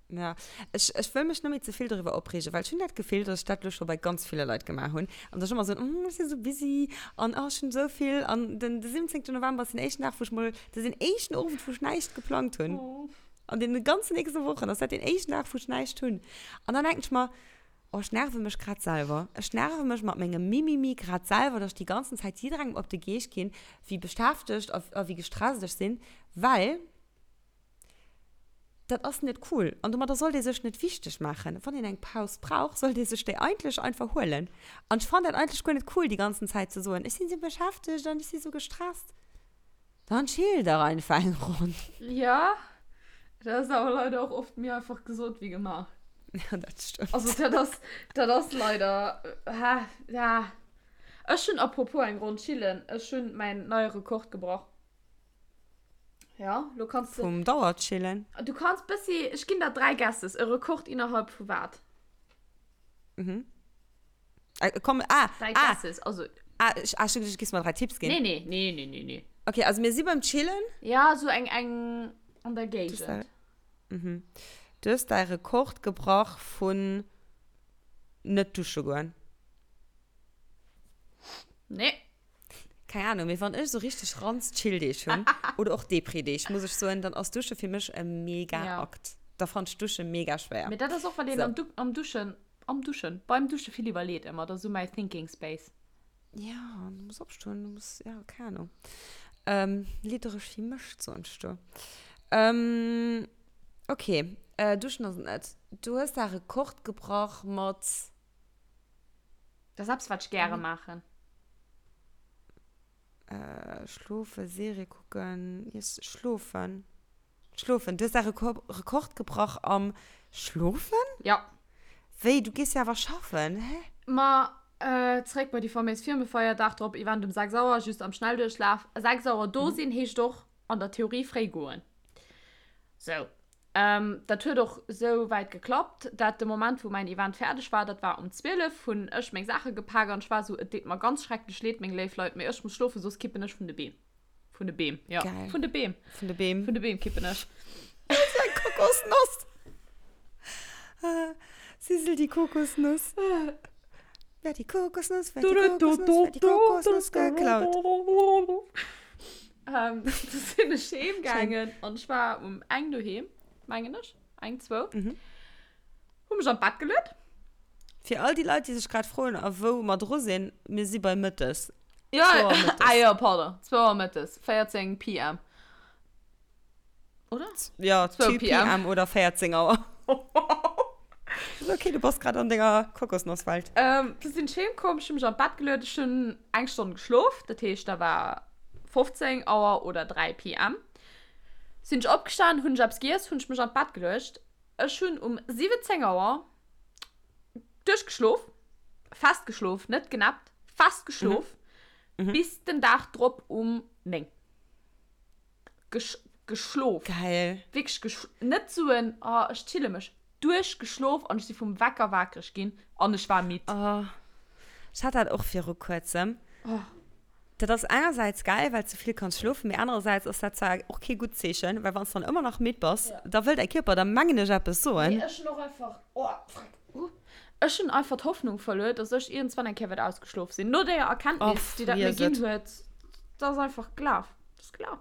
Ja, ech, ech wëll mech net méi ze vill doriwwer opreegen, well ech hunn dat Gefill, dass ech dat elo scho bei ganz ville Leit gemaach hunn. An dass ech ëmmer soen, oh, ech si sou busy an oh, ech hunn esou vill. An den, de 17. November ass den éischten Dag, wou ech mol, dat ass den éischten Owend, wou ech näischt geplangt hunn. An deene ganzen nächste Wochen ass dat deen éischten Dag, wou ech näischt hunn. An dann denken ech mer, oh, ech nerve mech grad selwer. Ech nerve mech mat mengem Mimimi grad selwer, dass ech déi ganzen Zäit jidderengem op de Geescht ginn, wéi beschäftegt a, a wéi gestresst ech sinn, well. Dat ass net cool an domadder sollt ee sech net wichteg maachen. Wann een eng Paus brauch, sollt ee sech déi eigentlech einfach huelen. An ech fannen dat eigentlech guer net cool, déi ganzen Zäit ze soen, ech sinn esou beschäftegt an ech si sou gestresst. Dann chill dach einfach eng Ronn. Jo, dat ass awer leider och oft méi einfach gesot wéi gemaach. Ja, dat stëmmt. Also dat ass, dat ass leider, ha, ja. Ech hunn, apropos eng Ronn chillen, ech hunn mäin neie Rekord gebrach. Ja, lo kanns de. Vum Dauerchillen. Du kanns bëssi, ech ginn der 3 Guesses, e Rekord innerhalb vu wat? Mhm. Äh, komm, ah, 3 ah. Guesses, also. Ah, ech, ah, ech hu geduecht, du giffs mer 3 Tipps ginn. Nee, nee, nee, nee, nee, nee. Okay, also mir si beim Chillen. Ja, sou eng, eng an der Géigend. Mhm. Du hues däi Rekord gebrach vun net dusche goen. Nee. Keng Ahnung, mee wann ech sou richteg ranz Chill-Deeg hunn, oder och Depri-Deeg, muss ech soen, dann ass Dusche fir mech e mega Akt. Da fannt ech Dusche mega schwéier. Mee dat ass och, well een am am Duschen, am Duschen, beim Dusche vill iwwerleet ëmmer. Dat ass sou mäi Thinking Space. Ja, du muss opstoen, du muss, ja, keng Ahnung. Liddereg wéi Mëscht, soen ech do. Okay, Duschen ass et net. Du hues däi Rekord gebrach mat. Dat ass eppes, wat ech gäre maachen. Äh, schlofen, Serie kucken, iess, schlofen. Schlofen. Du hues däi Rekord gebrach am Schlofen? Ja. Wéi, du gees jo awer schaffen, hä? Ma, zeréck bei déi faméis Firmefeier, Dag drop, Event um 6 Auer, just am Schnellduerchlaf. 6 Auer do sinn heescht och an der Theorie fréi goen. Sou. Dat huet och sou wäit geklappt, dat de Moment wou mäin Event fäerdeg war, dat war um 12, hunn ech meng Saache gepak an ech war sou, et deet mer ganz schrecklech leed, meng léif Leit, mee ech muss schlofen, soss kippen ech vun de Beem. Vun de Beem, jo. Geil. Vun de Beem. Vun de Beem. Vun de Beem kippen ech. Dat ass eng Kokosnoss. Sissel die Kokosnuss. Wer die Kokosnuss, wer die Kokosnuss, wer die Kokosnuss geklaut. Ähm, du sinn ech heem gaangen an ech war um eng doheem, mengen ech. Eng, zwou. Mhm. Hu mech an d'Bett geluet. Fir all déi Leit, déi sech grad froen, a wou mer dru sinn, mir si bei mëttes. Ja, Zwou Auer mëttes. ah jo, pardon. Zwou Auer mëttes, 14 PM. Oder? Ja, 2 2 PM. PM oder 14 Auer. Ist okay, du bass grad an denger Kokosnosswelt. Ähm, du sinn ech heem komm, ech hu mech an d'Bett geluet, ech hunn eng Stonn geschlof, dat heescht, da war 15 Auer oder 3 PM. Sinn ech opgestan, hunn ech eppes giess, hunn ech mech an d'Bett geluecht. Ech hunn um 17 Auer duerchgeschlof, fest geschlof, net genappt, fest geschlof, bis den Dag drop um 9. Gesch geschlof. Geil. Wierklech gesch net sou en oh ech chille mech. Duerchgeschlof an ech si vum Wecker wakereg ginn an ech war midd. Oh, ech hat dat och viru kuerzem. Oh. Dat ass engersäits geil, well s du vill kanns schlofen, mee anerersäits ass dat zwar och kee gutt Zeechen, well wann s dann ëmmer nach midd bass, da wëll däi Kierper der mengen ech eppes soen. Mee ech hunn och einfach, oh freck, uh, ech hunn einfach d'Hoffnung verluer, dass ech iergendswann eng Kéier wäert ausgeschlof sinn. No deeër Erkenntnis, déi dat mir ginn huet, dat ass einfach gelaf. Dat ass gelaf.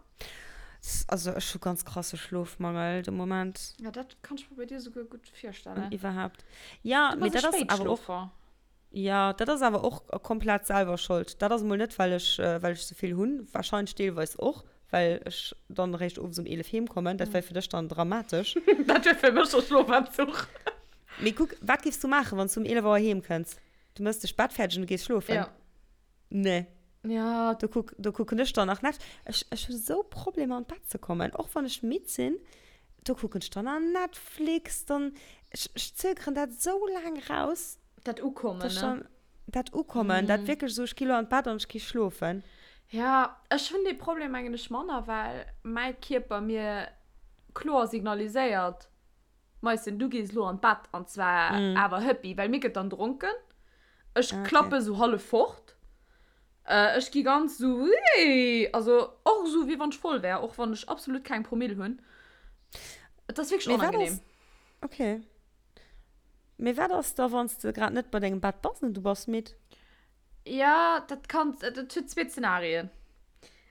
Also ech hu ganz krasse Schlofmangel de Moment. Ja, dat kann ech mer bei dir souguer gutt virstellen. An iwwerhaapt. Ja, mee dat ass awer och. Ja, dat ass awer och komplett selwer Schold. Dat ass emol net, well ech, well ech souvill hunn. Wahrscheinlech deelweis och, well ech dann eréischt owes um 11 heem kommen. Dat wär fir dech dann dramatesch. Dat wär fir mech e Schlofentzuch. Mee kuck, wat giffs du maachen, wann s du um 11 Auer heem kënns? Du mëss dech Bett fäerdeg an du gees schlofen? Ja. Nee. Ja. Do kuck, do kucken ech dann nach Netf. Ech, ech hu sou Problemer an d'Bett ze kommen, och wann ech midd sinn, do kucken ech dann nach Netflix, dann, ech, ech zögeren dat sou laang raus. Dat Ukommen, dass ne? dann, dat Ukommen, dat wierklech esou, ech gi lo an d'Bett an ech gi schlofen. Ja, ech hunn dee Problem mengen ech manner, well mäi Kierper mir kloer signaliséiert, Meischen, du gees lo an d'Bett an zwar awer hëppi, well mir gëtt dann dronken. Ech Ah, okay. klappe sou hallef fort. Ech gi ganz sou wéi, also och sou wéi wann ech voll wär, och wann ech absolut keng Promille hunn. Et ass wierklech Mee wat onangenehm. ass, okay. Mee wat ass da, wann s de grad net bei dengem Bett bass an du bass midd? Ja, dat kann, dat huet zwee Zenarien.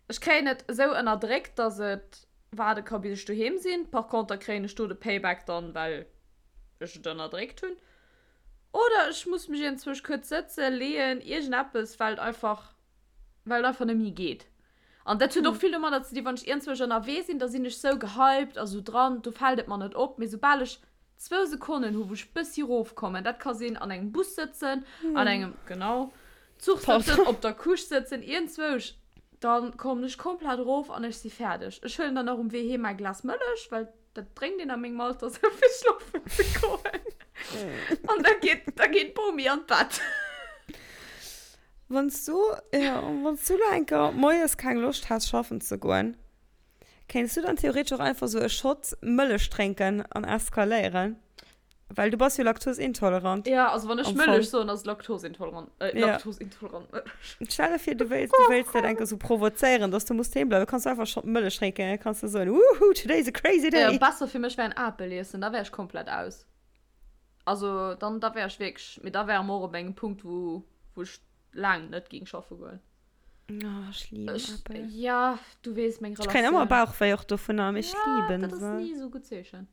Ech kréien et esou ënnerdréckt, dass et waarde ka bis ech doheem sinn. Par conter kréien ech do de Payback dann, well ech et ënnerdréckt hunn. Oder ech muss mech iergendzwousch kuerz sëtzen, leeën, iergendeppes, well et einfach, well et einfach net méi geet. An dat huet och vill domadder ze dinn, wann ech iergendzwousch ënnerwee sinn, da sinn ech sou gehypt a sou dran, do fält et mer net op. Mee soubal ech zwou Sekonnen hu wou ech bëssi rofkommen, dat ka sinn an engem Bus sëtzen, an engem, genau, Zuch sëtzen, op der Couche sëtzen, iergendzwousch, dann kommen ech komplett erof an ech si fäerdeg. Ech huelen dann och um Wee heem mäi Glas Mëllech, well dat drénkt een a mengem Alter sou fir schlofen ze goen. An da geet, da geet d'Bomi an d'Bett. Wann s du, jo, wann s du lo eng Kéier moies keng Loscht häss schaffen ze goen, kéints du dann theoretesch och einfach sou e Shot Mëllech drénken an eskaléieren? Well du bass jo laktosintolerant. Ja, also wann ech Mëllech soen, ass et laktosintolerant, äh, ja. laktosintolerant Mëllech. Stell der vir, du wéilst, du wéilst dat eng Kéier sou provozéieren, dass du muss heem bleiwen, kanns du einfach Shot Mëllech drénken, da kanns du soen, Woohoo, today is a crazy day! Ja, besser fir mech wär en Apel iessen, da wär ech komplett aus. Also dann da wär ech wierklech, mee da wäre mer och op engem Punkt, wou, wou ech laang net géing schaffe goen. Oh, ech liben Ech, Äppel. ja, du weess meng Ech kréien Relatioun. ëmmer Bauchwéi och dovunner, mee ech Ja, liben dat ass se. ni esou gutt Zeechen.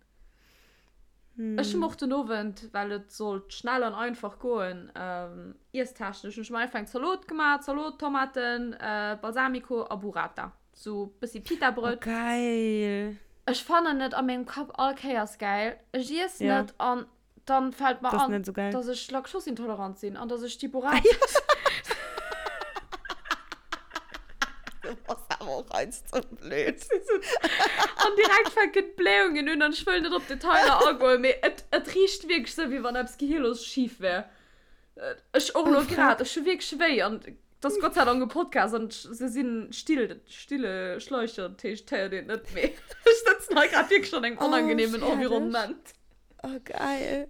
Ech hunn och den Owend, well et sollt schnell an einfach goen, ähm, iesstechnesch, hunn ech mer einfach eng Zalot gemaach, Zalot, Tomaten, äh, Balsamico a Burrata. Sou bëssi Oh, Pita-Brëtt. geil. Ech fannen et a mengem Kapp all Kéiers gäil. Ech iessen Ja. et an dann fällt mer Das an, net so geil. dass ech laktosintolerant sinn an dass ech déi Burrata. Du bass awer och eins ze blöd. An direkt fänken d'Blähungen un an ech wëll net op Detailer agoen, mee et, et richt wierklech sou, wéi wann eppes gehirlos schif wär. Ech och lo grad, ech hu wierklech wéi an et ass Gott sei Dank e Podcast an se sinn still, stille Schleicher, dat heescht, et héiert een et net, mee ech sëtzen hei grad wierklech an engem Oh, onangenehmen fäerdeg. Environnement. Oh, geil.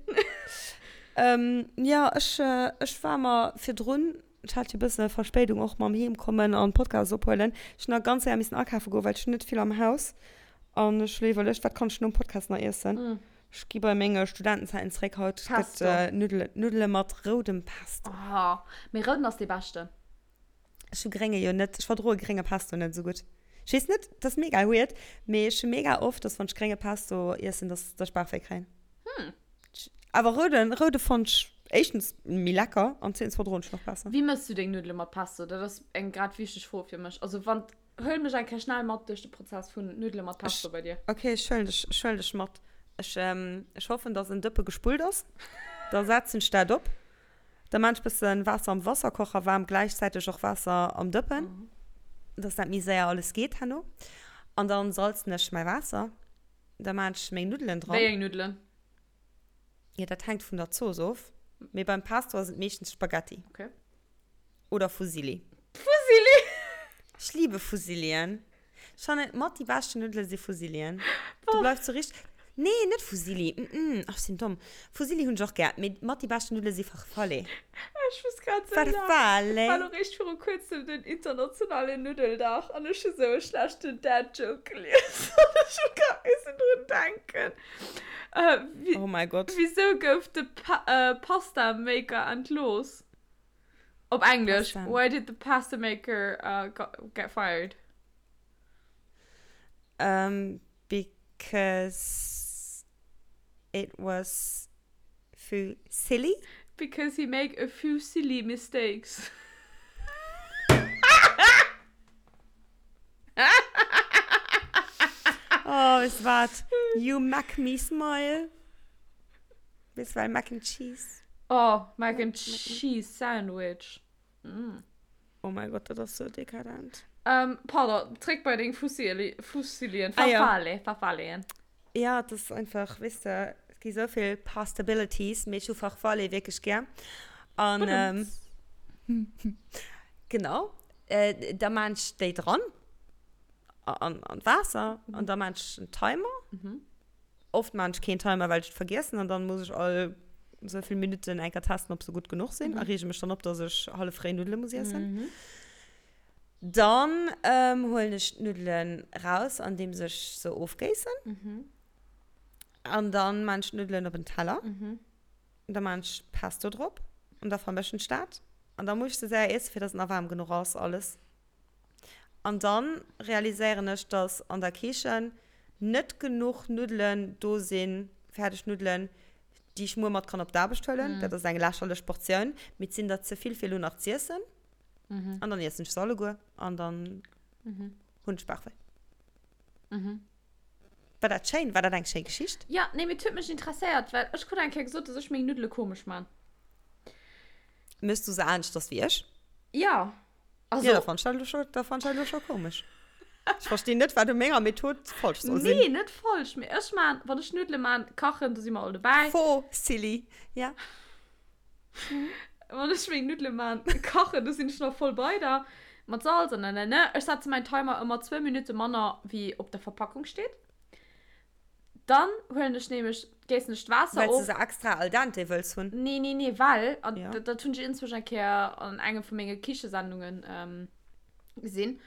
ähm, ja, ech, ech war mer virdrun, ech hat jo e bësse Verspéidung och mam Heemkommen an Podcast ophuelen. Ech hunn nach ganz séier missen akafe goen, well ech hunn net vill am Haus. An ech hu iwwerluecht, wat kann ech nom Podcast nach iessen? Mm. Ech gi bei menge Studentenzäiten zeréck. Haut gëtt Pesto. Nuddele, Nuddele mat roudem Pesto. Oh, mee rouden ass dee beschten. Ech hu grénge jo net, ech verdroe grénge Pesto net esou gutt. Ech weess net, dat ass mega weird, mee ech hu mega oft, dass wann ech grénge Pesto iessen, dass dass ech Bauchwéi kréien. Hm. Awer rouden, roude fonnt ech éischtens méi lecker an zweetens verdroen ech nach besser. Wéi mëss du deng Nuddele mat Pesto? Dat ass eng grad wichteg Fro fir mech. Also wann, huel mech eng Kéier schnell mat duerch de Prozess vun Nuddele mat Pesto Ech, bei dir. ok, ech huelen dech, ech huelen dech mat. Ech, ech hoffen, dass en Dëppe gespullt ass. Da setzen ech dat op. Da maan ech bëssen Waasser am Wasserkocher waarm, gläichzäiteg och Waasser am Dëppen, dass dat méi séier alles geet herno. An dann salzen ech mäi Waasser. Da maan ech meng Nuddelen Wéi dran. eng Nuddelen? Jo, dat hänkt vun der Zooss of, mee beim Pesto ass et meeschtens Spaghetti. Okay. Oder Fusilli. Fusilli! Ech liebe Fusillien. Ech fannen mat déi beschten Nuddele si Fusillien. Du bleifs sou richteg. Nee, net Fusilli. Mm, ach, ech sinn domm. Fusilli hunn ech och gär, mee mat déi beschten Nuddele si Farfalle. Ech muss grad sou laachen. Farfalle. Et war lo réischt viru kuerzem den internationalen Nuddeldag an ech hu sou e schlechten Dad-Joke gelies an ech hu grad missen drun denken. Äh, Oh mäi Gott. Wisou gouf de Pasta-Maker entlooss? Op Englesch, Pasta. Why did the pasta maker uh, got, get fired? Um, because it was fusilli. Because he make a few silly mistakes. Oh, weess de wat? You mak me smile. Weess well Mac and Cheese. Oh, Mac and Cheese Sandwich. Mm. Oh mein Gott, dat ass sou dekadent. Ähm, pardon, zréck bei deng Fusilli, Fusilien, Ah, ja. Farfalle, Farfalleen. Ja, dat ass einfach, weess de, et gi sou vill Pastabilities, mee ech hu Farfalle wierklech gär. An, ähm, genau, äh, da maan ech déi dran an, an d'Waasser an da maan ech en Timer. Mhm. Oft maan ech keen Timer, well ech et vergiessen an dann muss ech all sou vill Minutten eng Kéier testen, ob se gutt genuch sinn a reege mech dann op, dass ech hallef réi Nuddele muss iessen. Mhm. Dann ähm, huelen ech d'Nuddelen raus, andeems ech se ofgéissen. Mhm. An dann maan ech d'Nuddelen op en Teller. Mhm. Da maan ech Pesto drop an da vermëschen ech dat. An da muss ech se séier iessen, fir dass et nach waarm genuch ass alles. An dann realiséieren ech, dass an der Kichen net genuch Nuddelen do sinn, fäerdeg Nuddelen, déi ech muer mat kann op d'Aarbecht huelen. Dat ass eng lächerlech Portioun, mee et sinn der ze vill fir elo nach z'iessen. An dann iessen ech se alleguer an dann. Hunn ech Bauchwéi. War dat schéin? War dat eng schéi Geschicht? Jo, nee, mee et huet mech interesséiert, well ech krut eng Kéier gesot, dass ech meng Nuddele komesch man. Méchs du se aneschters wéi ech? Jo. Also. Jo, da fannt ech dat elo scho, da fannt ech dat elo scho komesch. Ech verstinn net, wat u menger Method falsch soll sinn. Nee, net falsch, mee ech man, wann ech Nuddele man, kachen, do si mer all dobäi. Faux, silly, ja. Wann ech meng Nuddele man, kachen, do sinn ech nach voll bei der. Mat Salz an nanana. Ech setze mäin Timer ëmmer zwou Minutte manner, wéi op der Verpackung steet. Dann huelen ech nämlech, géissen ech d'Waasser Well s du of. se extra al dente wëlls hunn? Nee, nee, nee, well, an Ja. dat, dat hunn ech inzwischen eng Kéier an engem vu menge Kichesendungen gesinn,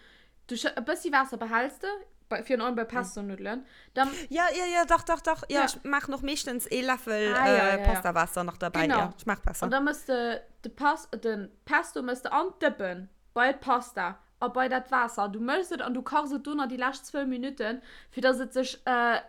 du schë, e bëssi Waasser behäls de, bei, virun allem bei Pesto-Nuddelen, dann. Ja, ja, ja, dach, dach, dach, ja, Ja. ech maachen och meeschtens ee Läffel Ah, ja, ja, ja. Pastawaasser nach derbäi, Genau. ja, schmaacht besser. An da mëss de de Pas, de Pesto mëss de an d'Dëppen bei d'Pasta. A bei dat Waasser. Du mëschs et an du kachs et do nach déi lescht zwou Minutten, fir dass et sech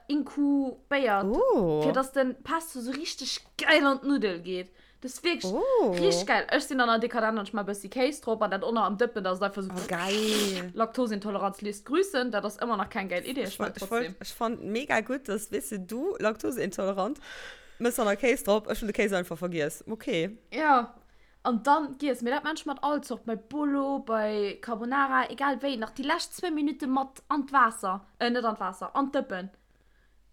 inkubéiert. Oh. Fir dass den Pesto sou richteg geil an d'Nuddel geet. Dat ass wierklech oh. richteg geil. Ech sinn dann nach dekadent an ech maache bëssi Kéis drop an dat och nach am Dëppen, dass et einfach sou. Oh, geil. Laktoseintoleranz léisst grüßen. Dat ass ëmmer nach keng geil Idee, ech wollt trotzdem. Ech fand mega gutt, dass, weess de, du laktoseintolerant, mëss dann nach Kéis drop. Ech hunn de Kéis einfach vergiess. Okay. Ja. An dann giess, mee dat maan ech mat all Zort, bei Bolo, bei Carbonara, egal wéi, nach déi lescht zwou Minutte mat an d'Waasser, äh net an d'Waasser, an d'Dëppen.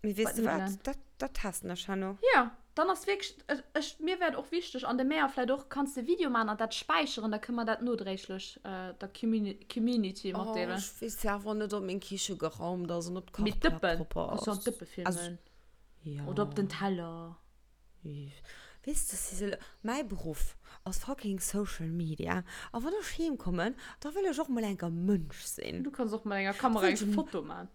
Mee weess de wat, dat, dat testen ech herno. Jo, dann ass wierklech, ech, mir wär et och wichteg, an de Mär vläit och, kanns de Video maan an dat späicheren, da kënne mer dat nodréiglech der Community matdeelen. Oh, ech weess awer net, ob meng Kiche geraumt ass an ob Mee d'Kachplack d'Dëppen, propper ass. Kanns du an d'Dëppe filmen. Jo. Oder op den Teller. Weess de Sissel, mäi Beruff ass fucking Social Media a wann ech heem kommen, da wëll ech och mol enker Mënsch sinn. Du kanns och mat enger Kamera eng Foto man.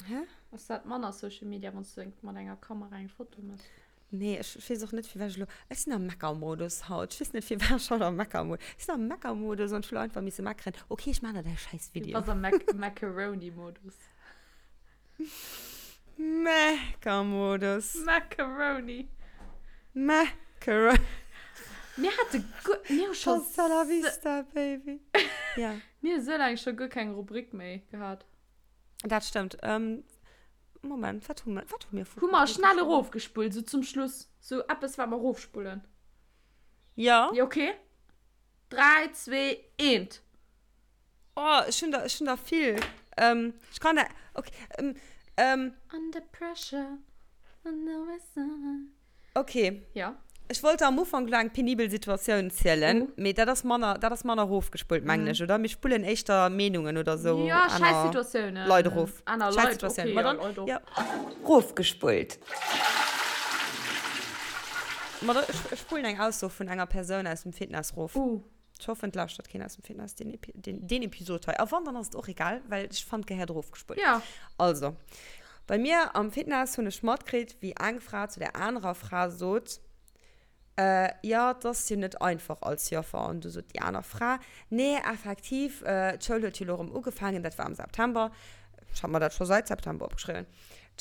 Hä? Ass dat manner Social Media, wann s du mat enger Kamera eng Foto mëss? Nee, ech weess och net firwat ech elo, ech sinn am Meckermodus haut, ech weess net firwat ech haut am Meckermodus, ech sinn am Meckermodus an ech wëll einfach misse meckeren. Ok, ech man der däi schäiss Video. Du bass am Macaroni-Modus. Meckermodus. Macaroni. Macaroni. Mir hate guer, mir hu scho. Hasta la vista, baby. Ja. Mir hu sou laang scho guer keng Rubrik méi gehat. Dat stëmmt. Ähm, Moment, wat hu mer, wat hu mir vu. Hu mer schnell erofgespullt, sou zum Schluss. Sou eppes, wat mer erofspullen. Ja. Jo, okay. 3, 2, 1. Oh, ech hunn der, ech hunn der vill. Ähm, ech kann der, okay, ähm, ähm. Under pressure, under pressure. Okay. Ja. Ech wollt der am Ufank elo eng penibel Situatioun zielen, uh. mee dat ass manner, dat ass manner erofgespullt, mengen mm. ech, oder? Mir spullen éischter Meenungen oder sou. Ja, scheiß Situatiounen. Leit erof. Aner Scheiß Leit, Situatiounen. okay, Ma ja, dann, Leit och. ja. Rofgespullt. Ma da, ech, ech spullen eng Ausso vun enger Persoun aus dem Fitness rof. Uh. Ech hoffen, et lauschtert keen aus dem Fitness deen, Epi deen, deen Episod hei. A wann, dann ass et och egal, well ech fand, gehéiert erofgespullt. Ja. Also, bei mir am Fitness hunn ech matkritt, wéi eng Fra zu der anerer Fra sot, Äh, jo, 't ass jo net einfach als Joffer. An du sot déi aner Fra, Nee, effektiv, d'Schoul huet jo elo erëm ugefaangen, dat war am September, ech hat mer dat scho seit September opgeschriwwen,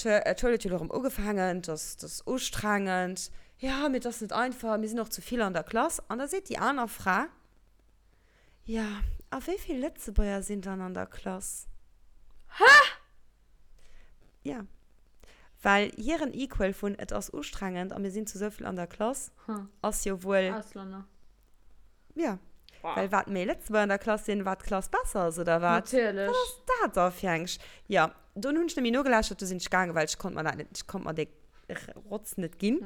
d'Schoul huet jo elo erëm ugefaangen, 't ass, 't ass ustrengend. Jo, mee et ass net einfach, mir sinn och zu vill an der Klass. An da seet déi aner Fra, Jo, a wéi vill Lëtzebuerger sinn dann an der Klass? Hä? Ja. Well hiren Equal vun et ass ustrengend a mir sinn zu souvill an der Klass ass jo wuel. Auslänner. Ja. Well wat méi Lëtzebuerger an der Klass sinn, wat d'Klass besser ass, oder wat? Natierlech. Wat ass dat da fir eng Sch. Jo, dunn hunn ech net méi nogelauschtert, du sinn ech gaangen, well ech konnt mer dat net, ech konnt mer dee Rotz net ginn.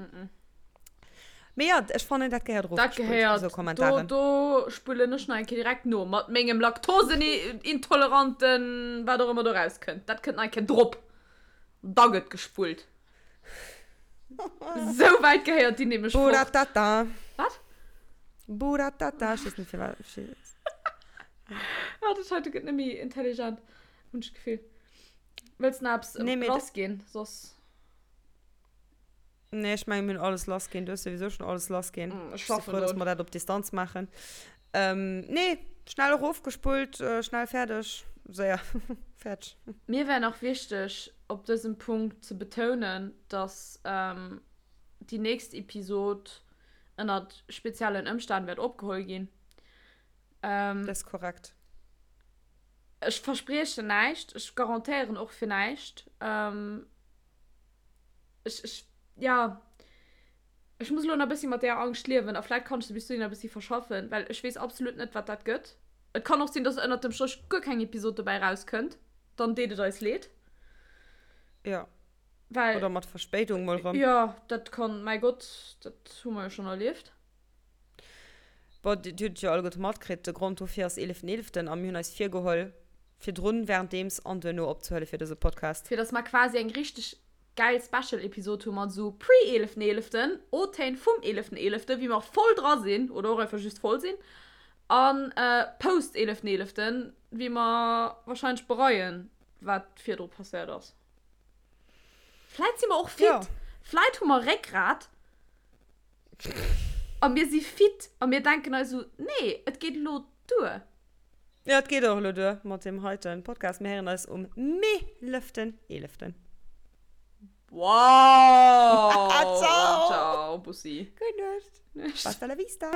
Mee jo, ech fannen, dat gehéiert Dat erofgespullt, gehéiert, esou Kommentaren. do, do spullen ech nach eng Kéier direkt no, mat mengem Laktosenintoleranten, wat och ëmmer do rauskënnt. Dat kënnt nach eng Kéier drop. Da gëtt gespullt. Sou wäit gehéiert déi nämlech fort. Buratata. Wat? Buratata, ech weess net firwat. Ah, dat heite gëtt net méi intelligent, hunn ech d'Gefill. Wëlls nach eppes Nee, mee lass ginn? Soss. Nee, ech mengen, mir hunn alles lass ginn. Du hues souwisou schon alles lass ginn. Mm, ech Ech si schaffen frou, dass drun. mer dat op Distanz maachen. Ähm, nee, schnell erofgespullt, äh, schnell fäerdeg, séier fäerdeg. Mir wär nach wichteg, op dësem Punkt ze betounen, dass ähm, déi nächst Episod ënnert speziellen Ëmstänn wäert opgeholl ginn. Ähm, Dat ass korrekt. Ech verspriechen näischt, ech garantéieren och fir näischt. Ähm, ech, ech, ja, ech muss elo nach e bëssi mat där Angscht liewen a vläit kann ech se bis dohinner e bëssi verschaffen, well ech weess absolut net, wat dat gëtt. Et kann och sinn, dass ënnert dem Stréch guer keng Episod dobäi rauskënnt, dann deet et eis leed. Ja. Well. Oder mat Verspéidung mol rëm. Jo, dat kann, mäi Gott, dat hu mer jo schonn erlieft. Bon, dir hutt et jo alleguerte matkritt, de Grond dofir ass eeleften eeleften a mir hunn eis virgeholl, virdrun, währenddeems an duerno opzehuele fir dëse Podcast. Fir dass mer quasi eng richteg gäil Special-Episod hu mat esou pre-eeleften eeleften, O-Téin vum eeleften eeleften, wéi mer voll dra sinn oder och einfach just voll sinn, an post-eeleften eeleften, wéi mer wahrscheinlech bereien, wat virdru passéiert ass. Vläit si mer och fit. Jo. Vläit hu mer Réckgrat. A mir si fit a mir denken eis esou, nee, et geet elo duer. Jo, et geet och elo duer mat deem heiten Podcast. Mir héieren eis um meeleften eeleften. Wow! Ciao! Ciao, Bussi. Gutt Nuecht. Nuecht. Hasta la vista!